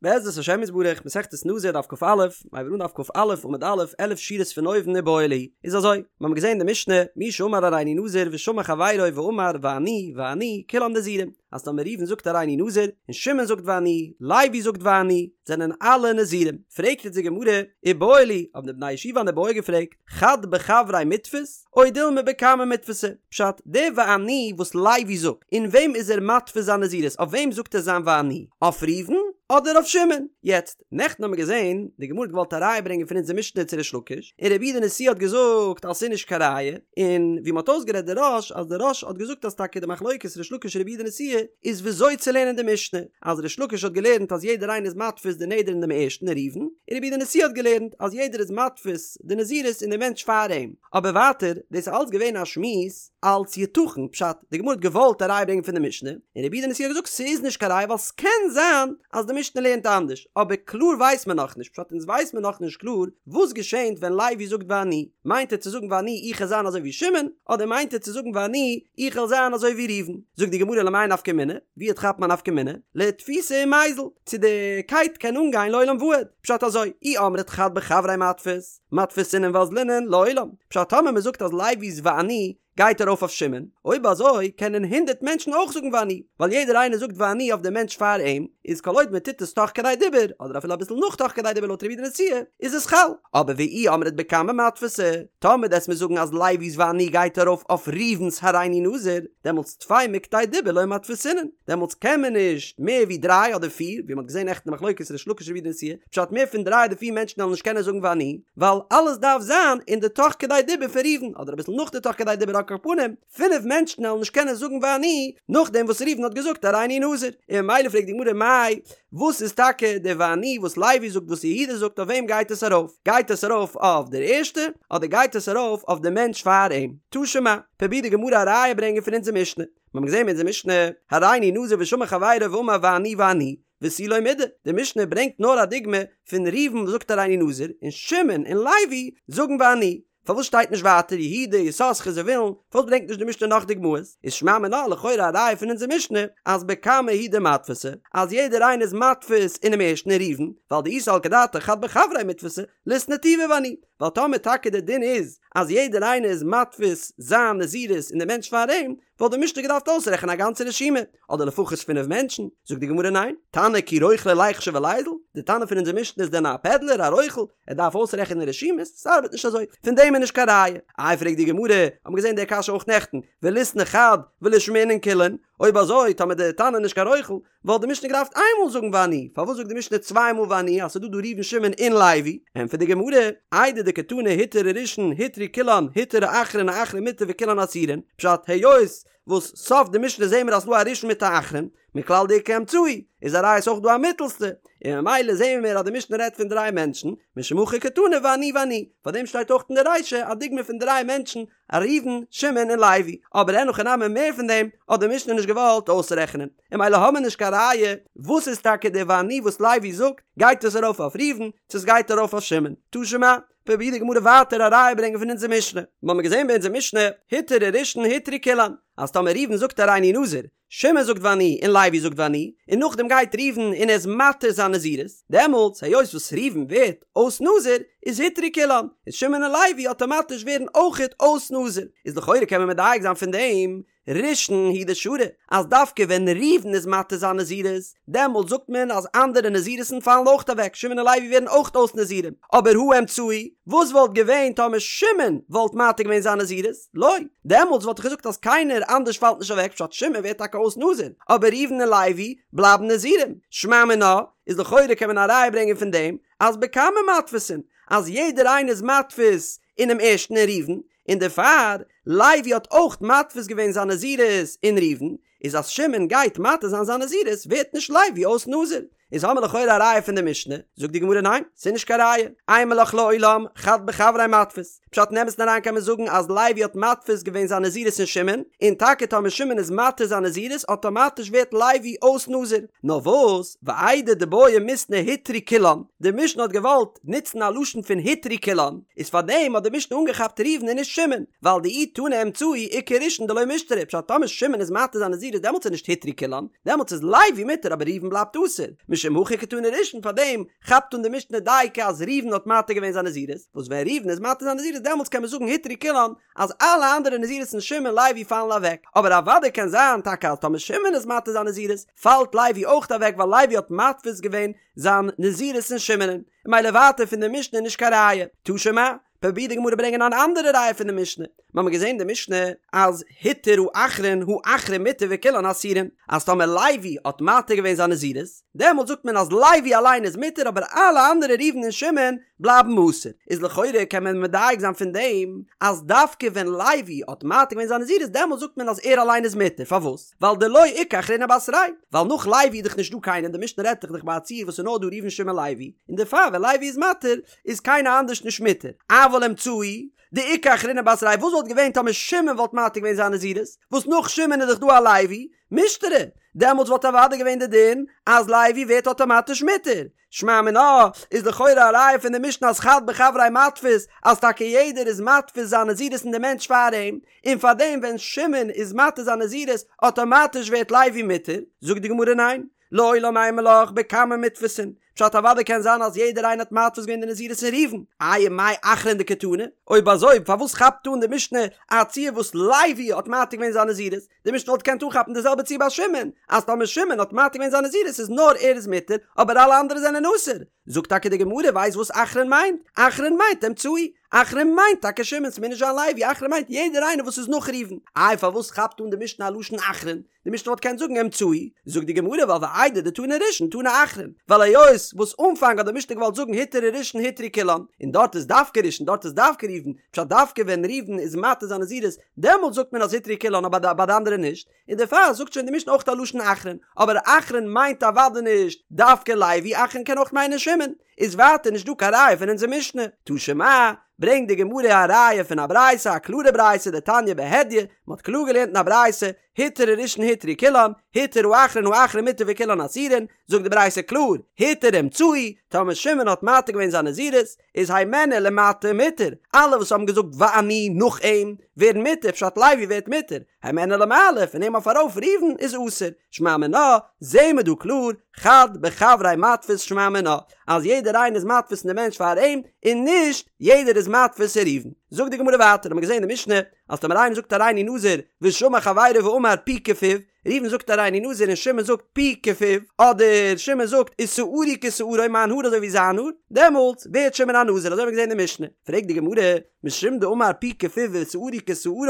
בעזרת השם יתברך, מסכת נזיר דף כ"א, מיר הייבן אן דף כ"א עמוד א', עלף שורות פון אויבן איבעיא להו, איז אזוי, מיר האבן געזען אין די משנה, מי שאמר הריני נזיר ושמע חברו ואמר ואני ואני כולם נזירים, אז טאמער ראובן זאגט הריני נזיר, און שמעון זאגט ואני, לוי זאגט ואני, זענען אלע נזירים. פרעגט איצט די גמרא, איבעיא להו, האבן די בני ישיבה אן איבעיא געפרעגט, חד בחבריה מיתפיס, או דילמא בקמא מיתפסי, פשט, די ואני וואס לוי זאגט, אין וועם איז ער מתפיס זיין נזירות, אויף וועם זאגט ער זיין ואני? אויף ראובן אדער אויף שמעון? יעצט, נעכטן האבן מיר געזען, די גמרא האט געוואלט א ראיה ברענגען פון אונזער משנה צו ריש לקיש, און רבי יהודה נשיאה האט געזאגט אז ס'איז נישט קיין ראיה, און ווי מ'האט אויסגערעדט די רא"ש, אז די רא"ש האט געזאגט אז טאקע די מחלוקת ריש לקיש רבי יהודה נשיאה איז וויאזוי צו לערנען די משנה, אז ריש לקיש האט געלערנט אז יעדער איינער איז מתפיס די נדר אין דעם ערשטן ראובן, און רבי יהודה נשיאה האט געלערנט אז יעדער איז מתפיס די נזירות אין די מענטש פאר אים. אבער ווייטער, דאס איז אלץ געווען א שמועס אלץ יתכן, פשט, די גמרא האט געוואלט א ראיה ברענגען פון די משנה, און רבי יהודה נשיאה האט געזאגט ס'איז נישט קיין ראיה ווייל ס'קען זיין אז די משנה לערנט אנדערש, אבער קלאר ווייסט מען נאכנישט, פשט אונז ווייסט מען נאכנישט קלאר וואס געשענט ווען לוי זאגט ואני, מיינט ער צו זאגן ואני איך וועל זיין אזוי ווי שמעון, אדער מיינט ער צו זאגן ואני איך וועל זיין אזוי ווי ראובן? זאגט די גמרא למאי נפקא מינה, ווי כאפט מען א נפקא מינה? לאתפוסי ומיזל, צו די קייט קען אנגיין לעולם ועד, פשט אזוי, אי אמרת חד בחבריה מיתפיס, מתפיסינן ואזלינן לעולם, פשט טאמער מען זאגט אז לוי'ס ואני גייט ארויף אויף שמעון, אויב אזוי קענען הונדערט מענטשן אויך זאגן ואני, ווייל יעדער איינער זאגט ואני אויף דעם מענטש פאר אים, איז כל עוד מען טוט עס תוך כדי דיבור, אדער אפילו אביסל נאך תוך כדי דיבור לויט רבי יהודה נשיאה, איז עס חל. אבער ואי אמרת בקמא מתפסי, טאמער דו'סט מיר זאגן אז לוי'ס ואני גייט ארויף אויף ראובן'ס הריני נזיר, דעמאלטס טפי מכדי דיבור לא מתפסינן, דעמאלטס קען מען נישט מער ווי דריי אדער פיר, ווי מען האט געזען נעכטן די מחלוקת ריש לקיש רבי יהודה נשיאה, פשט מער פון דריי אדער פיר מענטשן וועלן נישט קענען זאגן ואני, ווייל אלעס דארף זיין אין די תוך כדי דיבור פון ראובן, אדער אביסל נאך די תוך כדי דיבור על כל פנים, פינף מענטשן וועלן נישט קענען זאגן ואני, נאכדעם וואס ראובן האט געזאגט הריני נזיר, און ממילא פרעגט די גמרא מאי, וואס איז טאקע די ואני וואס לוי זאגט וואס יהודה זאגט אויף וועם גייט עס ארויף? גייט עס ארויף אויף דער ערשטע אדער גייט עס ארויף אויף די מענטש פאר אים? תא שמע, פרובירט די גמרא א ראיה ברענגען פון אונזער משנה, מיר האבן געזען אין אונזער משנה, הריני נזיר ושמע חברו ואמר ואני ואני, ותו לא מידי, די משנה ברענגט נאר א דוגמא פון ראובן וואס זאגט הריני נזיר, און שמעון און לוי זאגן ואני. פארוואס שטייט נישט ווייטער יהודה, יששכר, זבולון? פארוואס ברענגט נישט די משנה נאך דוגמאות? איז שמע מינה לכאורה א ראיה פון אונזער משנה אז בקמא הוא דמתפסי, אז יעדער איינער איז מתפיס אינעם ערשטן אין ראובן, ווייל דאי סלקא דעתך חד בחבריה מיתפסי, ליתני טובא ואני, ווייל טאמער טאקע דער דין איז אז יעדער איינער איז מתפיס זיין נזירות אין די מענטש פאר אים, וואלט די משנה געדארפט אויסרעכענען א גאנצע רשימה, אדער לפחות פינף מענטשן. זאגט די גמרא ניין, תנא כי רוכלא ליחשיב וליזיל, די תנא פון אונזער משנה איז דען א פעדלער, א רוכל, ער דארף אויסרעכענען רשימות? ס'ארבעט נישט אזוי, פון דעם איז נישט קיין ראיה. איי פרעגט די גמרא, האט מען געזען די קשיא אויך נעכטן, וליתני חד ולישמעינן כולן, אויב אזוי טאמער די תנא איז נישט קיין רוכל, וואלט די משנה געדארפט איינמאל זאגן ואני, פארוואס זאגט די משנה צוויי מאל ואני אז ס'איז דא דא ראובן שמעון און לוי? ענטפערט די גמרא, איידי דקתני הותר הראשון הותרו כולן הותר האחרון האחרון מותר וכולן אסורין, פשט היות וואס סוף די משנה זעהן מיר אז ס'דא א ראשון מיט א אחרון, מכלל דאיכא אמצעי, איז א ראיה ס'אויך דא א מיטעלסטע, און ממילא זעהן מיר אז די משנה רעדט פון דריי מענטשן, משום הכי קתני ואני ואני, פארדעם שטייט אויך אין די רישא א דוגמא פון דריי מענטשן, א ראובן, שמעון און לוי, אבער אין הכי נמי מער פון דעם האט די משנה נישט געוואלט אויסרעכענען, און ממילא האמיר נישט קיין ראיה וואס איז טאקע די ואני וואס לוי זאגט, גייט עס ארויף אויף ראובן, צו עס גייט ארויף אויף שמעון? תא שמע, פרובירט די גמרא ווייטער א ראיה ברענגען פון אונזער משנה, מ'האמיר געזען ביי אונזער משנה, הותר הראשון הותרו כולן, אז טאמער ראובן זאגט הריני נזיר, שמעון זאגט ואני און לוי זאגט ואני, און נאכדעם גייט ראובן און ער איז מתיר זיין נזירות, דעמאלטס היות וואס ראובן ווערט אויס נזיר, איז הותרו כולן, איז שמעון און לוי אטאמאטיש ווערן אויכעט אויס נזיר, איז לכאורה קען מען מדייק זיין פון דעם ראשון הוא דשרי, אז דווקא ווען ראובן איז מתיר זיין נזירות, דעמאלט זאגט מען אז אנדערע נזירות'ן פאלן אויכט אוועק, שמעון און לוי ווערן אויכט אויס נזירים, אבער הא אמצעי, וואס וואלט געווען טאמער שמעון וואלט מתיר געווען זיין נזירות? לא, דעמאלטס וואלט איך געזאגט אז קיינער אנדערש פאלט נישט אוועק פשט שמעון ווערט טאקע אויס נזיר, אבער ראובן און לוי בלייבן נזירים, שמע מינה, איז לכאורה קען מען א ראיה ברענגען פון דעם אז בקמא מתפיסין, אז יעדער איינער איז מתפיס אינעם ערשטן אין ראובן, און דערפאר לוי האט אויך מתפיס געווען זיין נזירות אין ראובן, איז אז שמעון גייט מתיר זיין זיין נזירות ווערט נישט לוי אויס נזיר, איז האמיר לכאורה א ראיה פון די משנה, זאגט די גמרא ניין, ס'איז נישט קיין ראיה, אימא לך לעולם חד בחבריה מתפיס, פשט אין אמת'ן אריין קען מען זאגן אז לוי האט מתפיס געווען זיין נזירות אין שמעון, און טאקע טאמער שמעון איז מתיר זיין נזירות אטאמאטיש ווערט לוי אויס נזיר, נאר וואס, ואיידי דבעי מיתני הותרו כולן, די משנה האט געוואלט נוצן א לשון פון הותרו כולן, איז פארדעם האט די משנה אנגעכאפט ראובן און נישט שמעון, ווייל דאי תנא אמצעי איכא ראשון דלא מישתרי, פשט טאמער שמעון איז מתיר זיין נזירות דעמאלטס איז נישט הותרו כולן, דעמאלטס איז לוי מותר אבער ראובן בלייבט אסור. משום הכי קתני ראשון פארדעם כאפט אן די משנה דייקא אז ראובן האט מתיר געווען זיין נזירות, וואס ווען ראובן איז מתיר זיין נזירות דעמאלטס קען מען זאגן הותרו כולן אז אלע אנדערע נזירות'ן שמעון לוי פאלן אוועק, אבער אוודאי קען זיין טאקע אז טאמער שמעון איז מתיר זיין נזירות פאלט לוי אויך אוועק ווייל לוי האט מתפיס געווען זיין נזירות אין שמעונ'ן, ממילא ווייטער פון די משנה נישט קיין ראיה. תא שמע, פרובירט די גמרא ברענגען אן אנדערע ראיה פון די משנה, מיר האבן געזען אין די משנה אז התיר האחרון האחרון מותר וכולן אסורין, אז טאמער לוי האט מתיר געווען זיין נזירות, דעמאלט זאגט מען אז לוי אליין איז מותר אבער אלע אנדערע ראובן און שמעון בלייבן אסור, איז לכאורה קען מען מדייק זיין פון דעם אז דווקא ווען לוי האט מתיר געווען זיין נזירות דעמאלט זאגט מען אז ער אליין איז מותר, פארוואס? ווייל דלא איכא אחרינא בתריה, ווייל נאך לוי איז דאך נישט דא קיינער, די משנה רעדט דאך ביי א ציור וואס איז נאר דא ראובן שמעון לוי, און דערפאר ווען לוי איז מתיר איז קיינער אנדערש נישט מותר, אבל אמצעי, דאיכא אחרינא בתריה, וואס וואלט געווען טאמער שמעון וואלט מתיר געווען זיין נזירות, וואס נאך שמעון איז דאך דא א לוי, מישתרי, דעמאלטס וואלט אוודאי געווען די דין אז לוי ווערט אטאמאטיש מותר, שמע מינה, איז לכאורה א ראיה פון די משנה אז חד בחבריה מתפיס, אז טאקע יעדער איז מתפיס זיין נזירות אין די מענטש פאר אים, און פארדעם ווען שמעון איז מתיר זיין נזירות אטאמאטיש ווערט לוי מותר, זאגט די גמרא ניין, לעולם אימא לך בקמא מיתפסין, פשט אוודאי קען זיין אז יעדער איינער האט מתפיס געווען די נזירות אין ראובן, איי ומאי אחרון דקתני? אויב אזוי פארוואס כאפט אן די משנה א ציור וואס לוי האט מתיר געווען זיין נזירות? די משנה וואלט געקענט אנכאפן די זעלבע ציור ביי שמעון, אז טאמער שמעון האט מתיר געווען זיין נזירות איז נאר ער איז מותר אבער אלע אנדערע זענען אסור. זאגט טאקע די גמרא ווייסט וואס אחרון מיינט? אחרון מיינט אמצעי, אחרון מיינט טאקע שמעון ס'מוז נישט זיין לוי, אחרון מיינט יעדער איינער וואס איז נאך ראובן. איי פארוואס כאפט אן די משנה א לשון אחרון? די משנה וואלט געקענט זאגן אמצעי, זאגט די גמרא ווייל ואיידי דתנא ראשון תנא אחרון, ווייל היות וואס אנפאנג האט די משנה געוואלט זאגן התיר הראשון הותרו כולן, און דארט איז דווקא ראשון דארט איז דווקא ראובן, פשט דווקא ווען ראובן איז מתיר זיין נזירות דעמאלט זאגט מען אז הותרו כולן אבער ביי די אנדערע נישט, און דערפאר זאגט שוין די משנה אויך א לשון אחרון, אבער אחרון מיינט אוודאי נישט דווקא לוי, אחרון קען אויך מיינען שמעון, איז ווייטער נישט דא קיין ראיה פון אונזער משנה. תא שמע, ברענגט די גמרא א ראיה פון א ברייתא, א קלארע ברייתא, דתניא בהדיא, מען האט קלאר געלערנט אין א ברייתא, התיר הראשון הותרו כולן, התיר האחרון האחרון מותר וכולן אסורין, זאגט די ברייתא קלאר, התיר אמצעי, טאמער שמעון האט מתיר געווען זיין נזירות, איז הימנו ולמטה מותר, אלע וואס האבן געזאגט ואני נאך אים, ווערן מותר, פשט לוי ווערט מותר, הימנו ולמעלה, פון אים אויף ארויף ראובן איז אסור, שמע מינה, זעהן מיר דא קלאר, חד בחבריה מתפיס שמע מינה, אז יעדער איינער איז מתפיס אין די מענטש פאר אים, און נישט יעדער איז מתפיס אין ראובן. זאגט די גמרא ווייטער, האט מען געזעהן אין די משנה, אז טאמער איינער זאגט הריני נזיר ושמע חברו ואמר פי כפיו, ראובן זאגט הריני נזיר און שמעון זאגט פי כפיו, אדער שמעון זאגט ושערי כשערו מיין האר אזוי ווי זיין האר, דעמאלטס ווערט שמעון א נזיר, אזוי האט מען געזען אין די משנה. פרעגט די גמרא, משום דאמר פי כפיו ושערי כשערו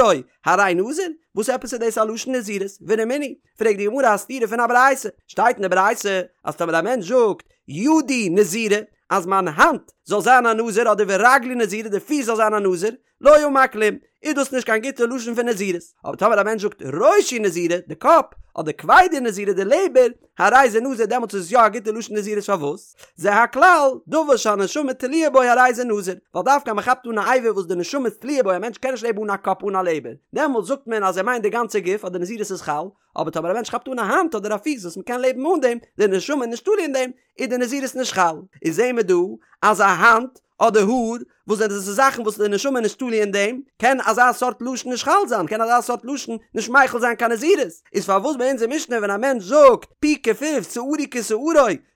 הרי נזיר? וואס עפעס איז דאס א לשון נזירות? ורמינהי, פרעגט די גמרא א סתירה פון א ברייתא, שטייט אין די ברייתא אז טאמער א מענטש זאגט ידי נזירה אז מיין האנט זאל זיין א נזיר אדער ורגלי נזירה די פיס זאל זיין א נזיר, לא אמר כלום, איז דאס נישט קיין גוטע לשון פון נזירות. אבער טאמער א מענטש זאגט ראשי נזירה, די קאפ, אדער כבדי נזירה, די לעבער, הרי זה נזיר, דעמאלטס איז עס יא א גוטע לשון נזירות פארוואס? זה הכלל, דבר שהנשמה תלויה בו הרי זה נזיר, ווייל דווקא אז מען כאפט אן א אבר וואס די נשמה איז תלויה בו, א מענטש קען נישט לעבן אן א קאפ אן א לעבער, דעמאלטס זאגט מען אז ער מיינט די גאנצע גוף אז די נזירות איז חל, אבער טאמער א מענטש כאפט אן א האנט אדער א פיס וואס מען קען לעבן אן דעם, די נשמה איז נישט תלוי אין דעם, איז די נזירות נישט חל. איז זעהן מיר דא אז א האנט אדער האר, וואס זענען דאס זאכן וואס די נשמה איז נישט תלוי אין דעם, קען אזא סארט לשון נישט חל זיין, קען אזא סארט לשון נישט מחיל זיין קיין נזירות. איז פארוואס ביי אונזער משנה ווען א מענטש זאגט פי כפיו שערי כשערו,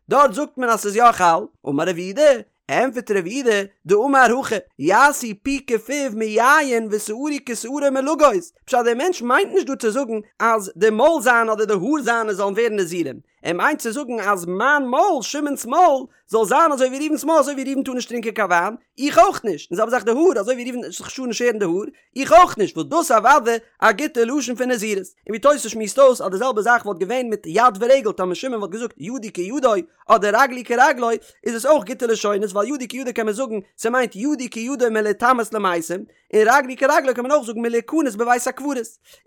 דארט זאגט מען אז ס'איז יא חל? אמר רב יהודה, ענטפערט רב יהודה, דאמר הכי, יעשה פי כפיו מיין ושערי כשערו מלגוז, פשט דער מענטש מיינט נישט דא צו זאגן אז די מויל זיינע אדער די האר זיינע זאלן ווערן נזירים, ער מיינט צו זאגן אז מיין מויל, שמעון'ס מויל, זאל זיין אזוי ווי ראובן'ס מויל, אזוי ווי ראובן טאר נישט טרינקען קיין וויין, איך אויך נישט, און זעלבע זאך די האר, אזוי ווי ראובן זיך טאר נישט שערן די האר, איך אויך נישט, וואס דאס אוודאי א גוטע לשון פון נזירות. און ווי תוס' שמועסט אויס אז די זעלבע זאך וואלט געווען מיט יד ורגל, טאמער שמעון וואלט געזאגט ידי כידו אדער רגלי כרגלו, איז עס אויך גוטע לשונות, ווייל ידי כידו קען מען זאגן ס'מיינט ידי כידו מלהיטמא למתים, און רגלי כרגלו קען מען אויך זאגן מלהיכנס בבית הקברות,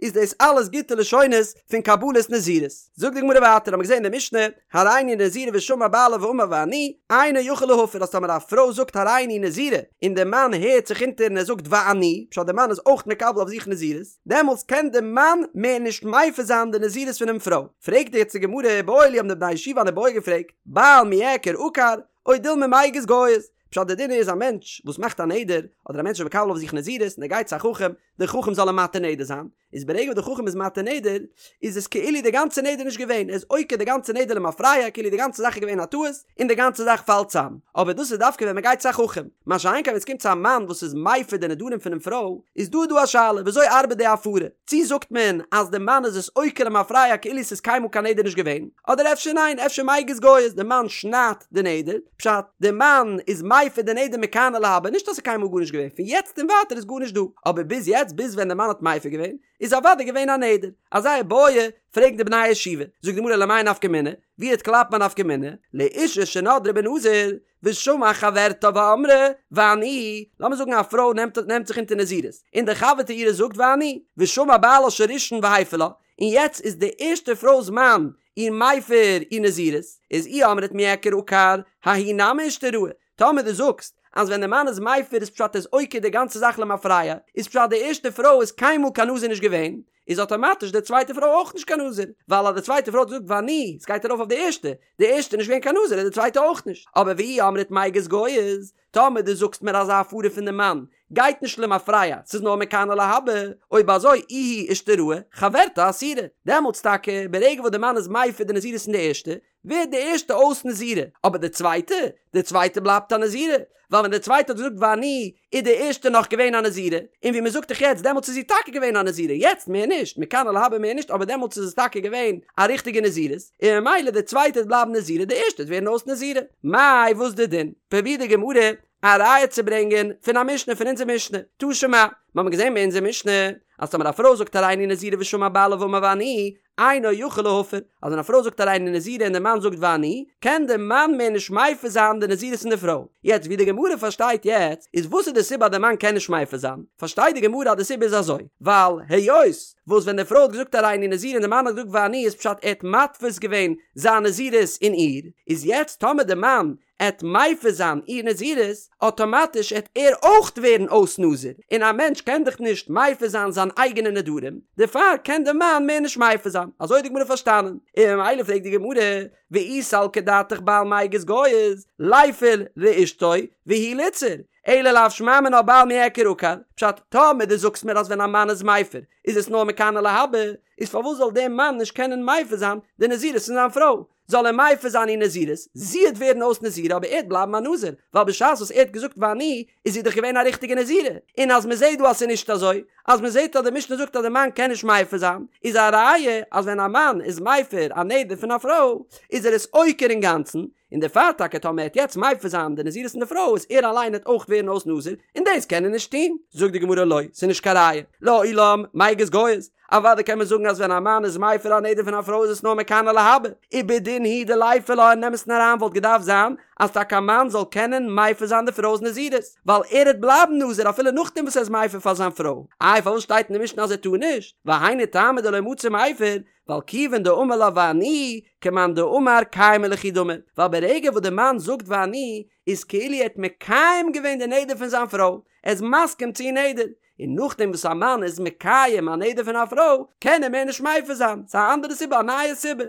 איז דאס אלעס גוטע לשונות פון קבלת נזירות. זאגט די גמרא ווייטער, האבן מיר געזען אין די משנה, הריני נזירה ושמע בעלה ואמר ואני, אינו יכול להפר אז טאמער א פרוי זאגט הריני נזירה און די מאן הערט זיך אונטער און ער זאגט ואני, פשט די מאן איז אויך מקבל אויף זיך נזירות, דעמאלטס קען די מאן מער נישט מפר זיין די נזירות פונעם פרוי. פרעגט יעצט די גמרא איבעיא להו האבן די בני ישיבה אן איבעיא געפרעגט, בעל מיעקר עקר, או דילמא מיגז גייז, פשט די דין איז א מענטש וואס מאכט א נדר, אדער א מענטש איז מקבל אויף זיך נזירות און ער גייט צו א חכם, דער חכם זאל אים מתיר נדר זיין, איז ברגע וואס די חכם איז מתיר נדר, איז עס כאילו די גאנצע נדר נישט געווען, ער איז עוקר די גאנצע נדר למפרע, כאילו די גאנצע זאך איז געווען א טעות, און די גאנצע זאך פאלט צאם. אבער דאס איז דווקא ווען מען גייט צו א חכם. מה שאין כן ווען עס קומט צו א מאן וואס איז מפר די נדרים פונעם פרוי, איז דא דא א שאלה, וויאזוי ארבעט די הפרה? צי זאגט מען אז די מאן איז עס עוקר למפרע כאילו עס איז קיינמאל קיין נדר נישט געווען, אדער אפשר ניין, אפשר מיגז גייז, די מאן שניידט די נדר, פשט, די מאן איז מפר די נדר מכאן ולהבא, נישט אז ס'איז קיינמאל גארנישט געווען, פון יעצט און ווייטער איז גארנישט דא, אבער ביז יעצט, ביז ווען די מאן האט מפר געווען, איז אוודאי געווען א נדר. אזא איבעיא פרעגן די בני הישיבה, זאגט די גמרא למאי נפקא מינה, ווי וועט קלאפן א נפקא מינה, לאשה שנדרה בנזיר, ושמעה חברתה ואמרה, ואני, לאמיר זאגן א פרוי נעמט נעמט זיך אונטער נזירות, און די חבר'טע אירע זאגט ואני, ושמע בעלה של ראשון והפר לה, און יעצט איז די ערשטע פרוי'ס מאן איר מפר איר נזירות, איז אי אמרת מיעקר עקר, ההיא נמי אישתראי, טאמער דו זאגסט אז ווען די מאן איז מפר איז פשט ער איז עוקר די גאנצע זאך למפרע, איז פשט די ערשטע פרוי איז קיינמאל קיין נזיר נישט געווען, איז אטאמאטיש די צווייטע פרוי אויך נישט קיין נזיר, ווייל אז די צווייטע פרוי האט געזאגט ואני, עס גייט ארויף אויף די ערשטע, די ערשטע איז נישט געווען קיין נזיר איז די צווייטע אויך נישט, אבער ואי אמרת מיגז גייז, טאמער דו זאגסט מיר אז א הפרה פון די מאן גייט נישט למפרע, ס'איז נאר מכאן ולהבא, אויב אזוי איהי אישתראי, חברתה אסירא, דעמאלטס טאקע ברגע וואס די מאן איז מפר די נזירות פון די ערשטע, ווערט די ערשטע אויס נזירה, אבער די צווייטע? די צווייטע בלייבט א נזירה, ווייל ווען די צווייטע האט געזאגט ואני איז די ערשטע נאך געווען א נזירה, און ווי מען זאגט דאך יעצט דעמאלטס איז זי טאקע געווען א נזירה, יעצט מער נישט, מכאן ולהבא מער נישט, אבער דעמאלטס איז עס טאקע געווען א ריכטיגע נזירות, און ממילא די צווייטע וועט בלייבן נזירה, די ערשטע וועט ווערן אויס נזירה. מאי וואס די דין? פרובירט די גמרא א ראיה צו ברענגען פון א משנה פון אונזער משנה, תא שמע, מיר האבן געזען ביי אונזער משנה אז טאמער א פרוי זאגט הריני נזירה ושמע בעלה ואמר ואני, אינו יכול להפר, אז ווען א פרוי זאגט הריני נזירה און דער מאן זאגט ואני, קען דער מאן מער נישט מפר זיין די נזירות פון די פרוי. יעצט ווי די גמרא פארשטייט יעצט, איז וואס איז די סיבה אז דער מאן קען נישט מפר זיין? פארשטייט די גמרא אז די סיבה איז אזוי, ווייל היות וואס ווען די פרוי האט געזאגט הריני נזירה און דער מאן האט געזאגט ואני איז פשט ער האט מתפיס געווען זיין נזירות אין איר, איז יעצט טאמער דער מאן עט מפר זיין איר נזירות, אטאמאטיש עט ער אויך ווערן אויס נזיר, און א מענטש קען דאך נישט מפר זיין זיין אייגענע נדרים, דערפאר קען די מאן מער נישט מפר זיין, אזוי האט די גמרא פארשטאנען, און ממילא פרעגט די גמרא, ואי סלקא דעתך בעל מיגז גייז, ליפר לאשתו והוא ליתסר, אלא לאו שמע מינה בעל מיעקר עקר, פשט, טאמער דו זאגסט מיר אז ווען א מאן איז מפר איז עס נאר מכאן ולהבא, איז פארוואס זאל דער מאן נישט קענען מפר זיין די נזירות פון זיין פרוי? זאל ער מפר זיין איר נזירות, זי עט ווערן אויס נזירה אבער ער עט בלייבן א נזיר, ווייל בשעת וואס ער האט געזאגט ואני איז זי דאך געווען א ריכטיגע נזירה, און אז מען זעט דא אז ס'איז נישט אזוי, אז מען זעט אז די משנה זאגט אז די מאן קען נישט מפר זיין, איז א ראיה אז ווען א מאן איז מפר א נדר פון א פרוי איז ער עס עוקר אינגאנצן, און דערפאר טאקע טאמער ער עט יעצט מפר זיין די נזירות פון די פרוי איז ער אליין עט אויך ווערן אויס נזיר, און דאס קען ער נישט טון. זאגט די גמרא לא, ס'איז נישט קיין ראיה, לעולם מיגז גייז, אוודאי קען מען זאגן אז ווען א מאן איז מפר א נדר פון א פרוי איז עס נאר מכאן ולהבא, ובדין הוא דליפר לה אין אמת'ן אריין וואלט געדארפט זיין אז טאקע א מאן זאל קענען מפר זיין די פרוי'ס נזירות, ווייל ער העט בלייבן נזיר אפילו נאכדעם וואס ער איז מפר פאר זיין פרוי, איי פארוואס שטייט אין די משנה אז ער טאר נישט? והיינו טעמא דלא מצי מיפר, ווייל כיוון דאמר לה ואני, כמאן דאמר קיימא ליכי דמי, ווייל ברגע וואס די מאן זאגט ואני, איז כאילו ער האט מקיים געווען די נדר פון זיין פרוי, ער איז מסכים צו איר נדר, און נאכדעם וואס א מאן איז מקיים א נדר פון א פרוי, קען ער מער נישט מפר זיין, ס'איז א אנדערע סיבה, א נייע סיבה.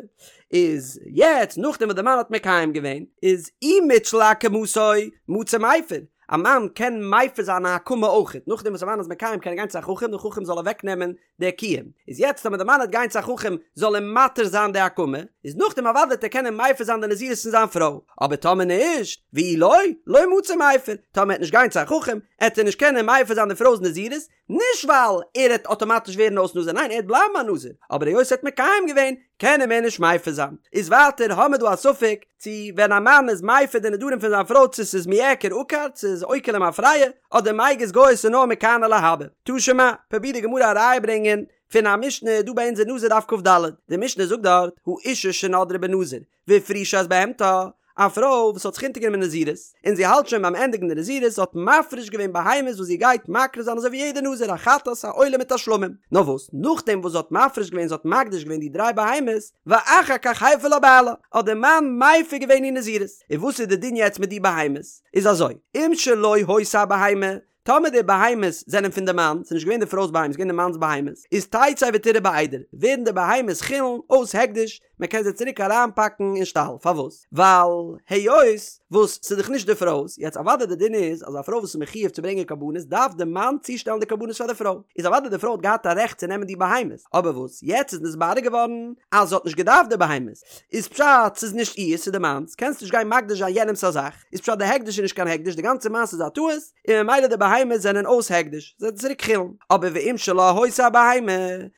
איז יעצט נאכדעם וואס די מאן האט מקיים געווען, איז אי מתשיל להקמתו, מצי מיפר, א מאן קען מפר זיין א הקמה אויכעט, נאכדעם וואס א מאן איז מקיים קען ער גיין צו א חכם, דער חכם זאל אוועק נעמען די קיום, איז יעצט טאמער די מאן העט גיין צו א חכם זאל אים מתיר זיין די הקמה, איז נאכדעם אוודאי העט ער קענען מפר זיין די נזירות פון זיין פרוי, אבער טאמער נישט, ואי לא, לא מצי מיפר, טאמער ער העט נישט גיין צו א חכם, העט ער נישט קענען מפר זיין די פרוי'ס נזירות, נישט ווייל ער העט אטאמאטיש ווערן אויס נזיר, ניין ער העט בלייבן א נזיר, אבער היות ער האט מקיים געווען, קען ער מער נישט מפר זיין. איז ווייטער האמער דא א ספק, צו ווען א מאן איז מפר די נדרים פון זיין פרוי צו ס'איז מיעקר עקר, צו ס'איז עוקר למפרע, אדער מיגז גייז ס'איז נאר מכאן ולהבא. תא שמע, פרובירט די גמרא א ראיה ברענגען פון א משנה דא ביי אונז אין נזיר דף כ"ד, די משנה זאגט דארט, האשה שנדרה בנזיר, והפרישה את בהמתה, א פרוי וואס האט זיך אונטערגענומען נזירות, און זי האלט שוין ביים ענדיגן די נזירות, זי האט מפריש געווען בהמות וואס זי גייט מקריב זיין אזוי ווי יעדע נזיר, א חטאת, א עולה מיט א שלמים. נאר וואס, נאכדעם וואס זי האט מפריש געווען, זי האט מקדיש געווען די דריי בהמות, ואחר כך הפר לה בעלה, האט דער מאן מפר געווען איר נזירות. און וואס איז די דין יעצט מיט די בהמות? איז אזוי, אם שלו היתה הבהמה, טאמער די בהמות זענען פון די מאן, ס'איז נישט געווען די פרוי'ס בהמות, ס'איז געווען די מאנ'ס בהמות, איז תצא ותרעה בעדר, ווערן די בהמות חולין אויס הקדש, מען קען זיי צוריק אריינפאקן אין שטאל, פארוואס? ווייל היות וואס ס'איז דאך נישט די פרוי'ס, יעצט אוודאי די דין איז אז א פרוי וואס איז מחיוב צו ברענגען קרבנות דארף די מאן צושטעלן די קרבנות פאר די פרוי, איז אוודאי די פרוי האט געהאט א רעכט צו נעמען די בהמות, אבער וואס יעצט איז נתברר געווארן אז זי האט נישט געדארפט די בהמות, איז פשט ס'איז נישט איר'ס ס'איז די מאנ'ס, קענסט נישט גיין מקדיש זיין יענעמ'ס א זאך, איז פשט די הקדש איז נישט קיין הקדש די גאנצע מעשה איז א טעות, און ממילא די בהמות זענען אויס הקדש, זיי זענען צוריק חולין, אבער ואם שלה היתה הבהמה,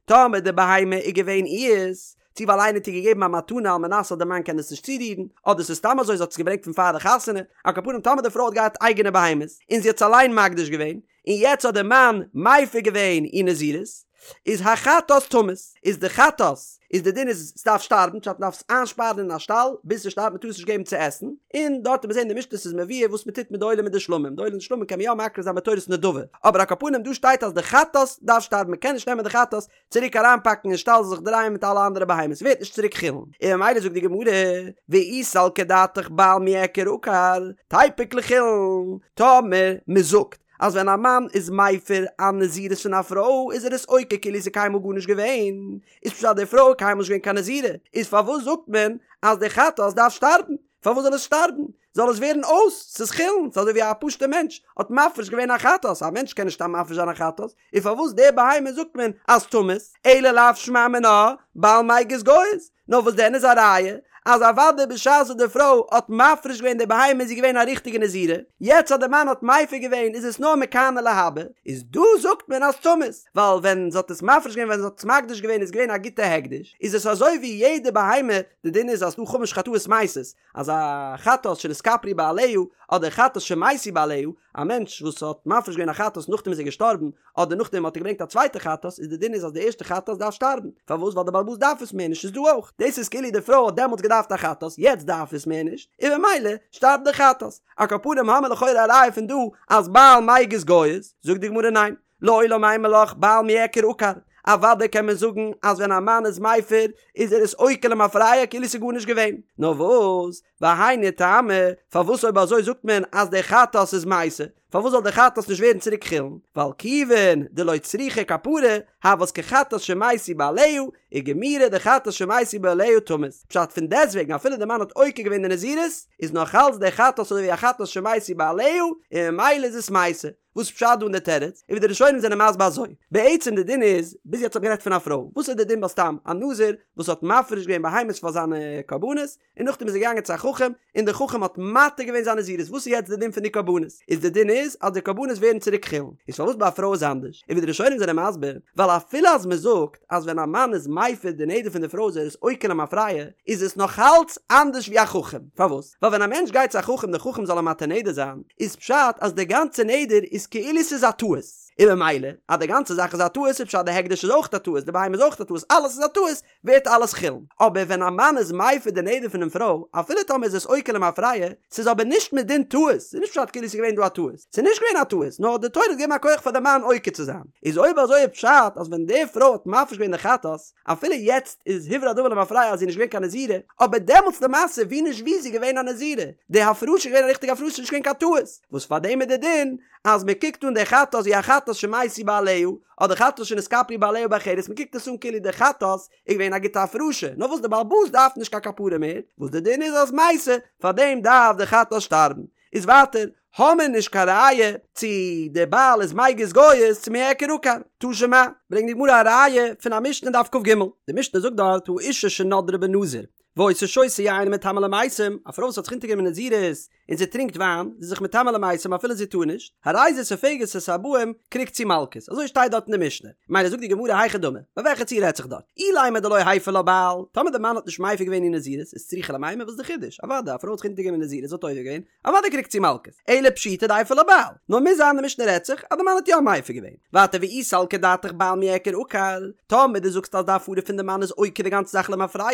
טאמער די בהמה איז געווען איר'ס, צו ווייל איינער האט איר געגעבן א מתנה על מנת אז די מאן קען עס נישט צורירן, אדער ס'איז סתם אזוי זי האט עס געברענגט פון פאר די חתונה, על כל פנים טאמער די פרוי האט געהאט אייגענע בהמות, און זי האט עס אליין מקדיש געווען, און יעצט האט די מאן מפר געווען איר נזירות, איז החטאת תמות, איז די חטאת, איז די דין איז ס'דארף שטארבן, פשט מ'דארף עס איינשפארן אין א שטאל ביז ס'שטארבט מ'טאר עס נישט געבן צו עסן, און דארט וועט מען זען אין די משנה ס'איז מבואר וואס מ'טוט מיט די עולה מיט די שלמים, די עולה און די שלמים קען מען יא מקריב זיין בתורת נדבה, אבער על כל פנים דא שטייט אז די חטאת דארף שטארבן מ'קען נישט נעמען די חטאת צוריק אריינפאקן אין שטאל זיך דרייען מיט אלע אנדערע בהמות ווערט נישט צוריק חולין, און ממילא זאגט די גמרא, ואי סלקא דעתך בעל מיעקר עקר, תיפוק לחולין, טאמער מ'זאגט אז ווען א מאן איז מפר א נזירות פון א פרוי איז ער עס עוקר כאילו ס'איז קיינמאל גארנישט געווען, איז פשט די פרוי איז קיינמאל נישט געווען קיין נזירה, איז פארוואס זאגט מען אז די חטאת דארף שטארבן? פארוואס זאל עס שטארבן? זאל עס ווערן אויס, ס'איז חולין, ס'איז אזוי ווי א פשוט'ער מענטש האט מפריש געווען א חטאת, א מענטש קען נישט סתם מפריש זיין א חטאת, און פארוואס די בהמה זאגט מען אז תמות, אלא לאו שמע מינה, בעל מיגז גייז, נאר וואס דען איז א ראיה אז אוודאי בשעת וואס די פרוי האט מפריש געווען די בהמה איז זי געווען א ריכטיגע נזירה, יעצט אז די מאן האט מפר געווען איז עס נאר מכאן ולהבא, איז דא זאגט מען אז תמות, ווייל ווען זי האט עס מפריש געווען ווען זי האט עס מקדיש געווען איז געווען א גוטע הקדש, איז עס אזוי ווי יעדע בהמה, די דין איז אז ס'דא חמש חטאות מתות, אז א חטאת שנתכפרו בעליה אדער חטאת שמתו בעליה, א מענטש וואס האט מפריש געווען א חטאת נאכדעם איז ער געשטארבן, אדער נאכדעם האט ער געברענגט א צווייטע חטאת, איז די דין איז אז די ערשטע חטאת דארף שטארבן, פארוואס ווייל די בעל הבית דארף עס מער נישט איז דא אויך, דאס איז כאילו די פרוי האט דעמאלטס געדארפט א חטאת יעצט דארף עס מער נישט, און במילא שטארבט די חטאת. על כל פנים האמיר לכאורה א ראיה פון דא אז בעל מיגז גייז, זאגט די גמרא ניין, לעולם אימא לך בעל מיעקר עקר, אוודאי קען מען זאגן אז ווען א מאן איז מפר איז ער עס עוקר למפרע כאילו ס'איז גארנישט געווען, נאר וואס, והיינו טעמא, פארוואס אויב אזוי זאגט מען אז די חטאת איז מתה, פארוואס זאל די חטאת נישט ווערן צוריק חולין, ווייל כיוון דלא צריכה כפרה, הות כחטאת שמתו בעליה, וגמירי דחטאת שמתו בעליה תמות, פשט פון דעסוועגן אפילו די מאן האט עוקר געווען די נזירות, איז נאך אלץ די חטאת אזוי ווי א חטאת שמתו בעליה, און ממילא איז עס מתה. וואס פשט דא אין די תירוץ? און ווי די ראשונים זענען מסביר אזוי, בעצם די דין איז, ביז יעצט האט מען גערעדט פון א פרוי, וואס איז די דין ביי סתם א נזיר וואס האט מפריש געווען בהמות פאר זיינע קרבנות, און נאכדעם איז ער געגאנגען צו א חכם, און דער חכם האט מתיר געווען זיין נזירות, וואס איז יעצט די דין פון די קרבנות? איז די דין איז אז די קרבנות ווערן צוריק חולין, איז פארוואס ביי א פרוי איז אנדערש? און ווי די ראשונים זענען מסביר, ווייל אפילו אז מען זאגט אז ווען א מאן איז מפר די נדר פון די פרוי איז ער עס עוקר למפרע, איז עס נאכאלץ אנדערש ווי א חכם, פארוואס? ווייל ווען א מענטש גייט צו א חכם דער חכם זאל אים מתיר נדר זיין, איז פשט אז די גאנצע נדר איז כאילו ס'איז א טעות, און ממילא אז די גאנצע זאך איז א טעות איז פשט די הקדש איז אויך א טעות, די בהמה איז אויך א טעות, אלעס איז א טעות, ווערט אלעס חולין. אבער ווען א מאן איז מפר די נדר פונעם פרוי, אפילו טאמער איז עס עוקר למפרע, ס'איז אבער נישט מדין טעות, ס'איז נישט פשט כאילו ס'איז געווען דא א טעות, ס'איז נישט געווען א טעות, נאר די תורה האט געגעבן א כח פאר די מאן עוקר צו זיין. איז אויב אזוי איז פשט אז ווען די פרוי האט מפריש געווען די חטאת, אפילו יעצט איז הוברר הדבר למפרע אז זי איז נישט געווען קיין נזירה, אבער דעמאלטס למעשה ווי נישט ווי איז זי געווען א נזירה, די הפרשה איז געווען א ריכטיגע הפרשה נישט געווען קיין טעות, וואס פאר דעם איז די דין אז מען קוקט אן די חטאת ווי א חטאת שמתו בעליה, אדער חטאת שנתכפרו בעליה באחרת, מען קוקט עס אן כאילו די חטאת איז געווען א גוטע הפרשה, נאר וואס די בעל הבית דארף נישט קיין כפרה מער, וואס די דין איז אז מתה, פאר דעם דארף די חטאת שטארבן. איז ווייטער, האמיר נישט קיין ראיה צו די בעל איז מיגז גייז צו מיעקר עקר. תא שמע, ברענגט די גמרא א ראיה פון א משנה אין דף כ"ג, די משנה זאגט דארט האשה שנדרה בנזיר והיתה שותה יין ומטמאה למתים, א פרוי וואס האט זיך אונטערגענומען נזירות און זי טרינקט וויין, זי איז זיך מטמא למתים אפילו זי טאר נישט, הרי זו סופגת את הארבעים, קריגט זי מלקות. אזוי שטייט דארט אין די משנה. ממילא זאגט די גמרא היכי דמי, ביי וועלכע ציור רעדט זיך דארט? אילימא דלא הפר לה בעל, טאמער די מאן האט נישט מפר געווען איר נזירות, איז צריכא למימר, וואס איז די חידוש? אוודאי, א פרוי האט זיך אונטערגענומען נזירות, זי האט עובר געווען, אוודאי קריגט זי מלקות. אלא פשיטא דהפר לה בעל. נאר מוז זיין די משנה רעדט זיך אז די מאן האט יא מפר געווען. ווייטער ואי סלקא דעתך בעל מיעקר עקר, טאמער דו זאגסט אז די הפרה פון די מאן איז עוקר די גאנצע זאך למפרע,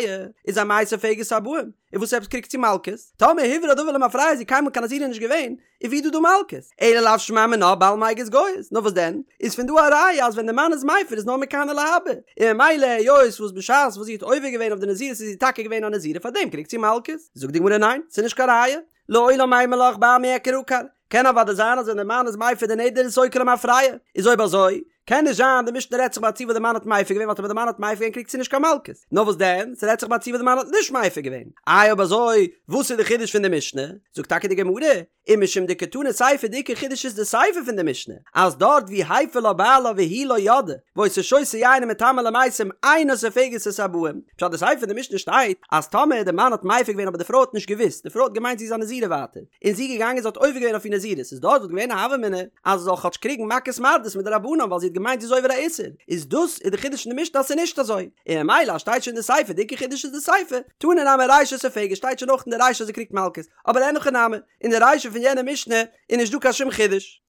איז אמאי סופגת ארבעים? און וואס עפעס קריגט זי מלקות? טאמער הוברר הדבר למפרע איז זי קיינמאל קיין נזירה נישט געווען, איז ווי דא דא מלקות? אלא לאו שמע מינה בעל מיגז גייז, נאר וואס דען? איז פון דא א ראיה אז ווען די מאן איז מפר איז נאר מכאן ולהבא, און ממילא היות וואס בשעת וואס זי האט עובר געווען אויף די נזירות איז זי טאקע געווען א נזירה פארדעם קריגט זי מלקות? זאגט די גמרא ניין, ס'איז נישט קיין ראיה, לעולם אימא לך בעל מיעקר עקר, קען אוודאי זיין אז ווען די מאן איז מפר די נדר איז עס עוקר למפרע, איז אויב אזוי. קען נישט זיין די משנה רעדט זיך ביי א ציור וואס די מאן האט מפר געווען ווייל טאמער די מאן האט מפר געווען קריגט זי נישט קיין מלקות. נאר וואס דען? ס'רעדט זיך ביי א ציור וואס די מאן האט נישט מפר געווען. איי אויב אזוי וואס איז די חידוש פון די משנה? זאגט טאקע די גמרא, ומשום דקתני סיפא די עיקר חידוש איז די סיפא פון די משנה, אז דארט ווי הפר לה בעלה והיא לא ידעה, והיתה שותה יין ומטמאה למתים אינה סופגת את הבאים, פשט די סיפא פון די משנה שטייט אז טאמער די מאן האט מפר געווען אבער די פרוי האט נישט געוואוסט, די פרוי האט געמיינט זי איז א נזירה ווייטער, און זי איז געגאנגען זי האט עובר געווען אויף איר נזירות, איז דארט וואלט געווען א הוה אמינא אז זי זאל כאטש קריגן מכות מרדות מדרבנן ווייל זי האט געמיינט זי איז עובר א איסור, איז דאס איז די חידוש אין די משנה אז ס'איז נישט אזוי, און ממילא אז שטייט שוין אין די סיפא די עיקר חידוש איז די סיפא, תנא נמי רישא סופגת שטייט שוין אויך אין די רישא אז זי קריגט מלקות, אבער אין הכי נמי, אין די רישא פון יענע משנה איז נישט דא קיין שום חידוש.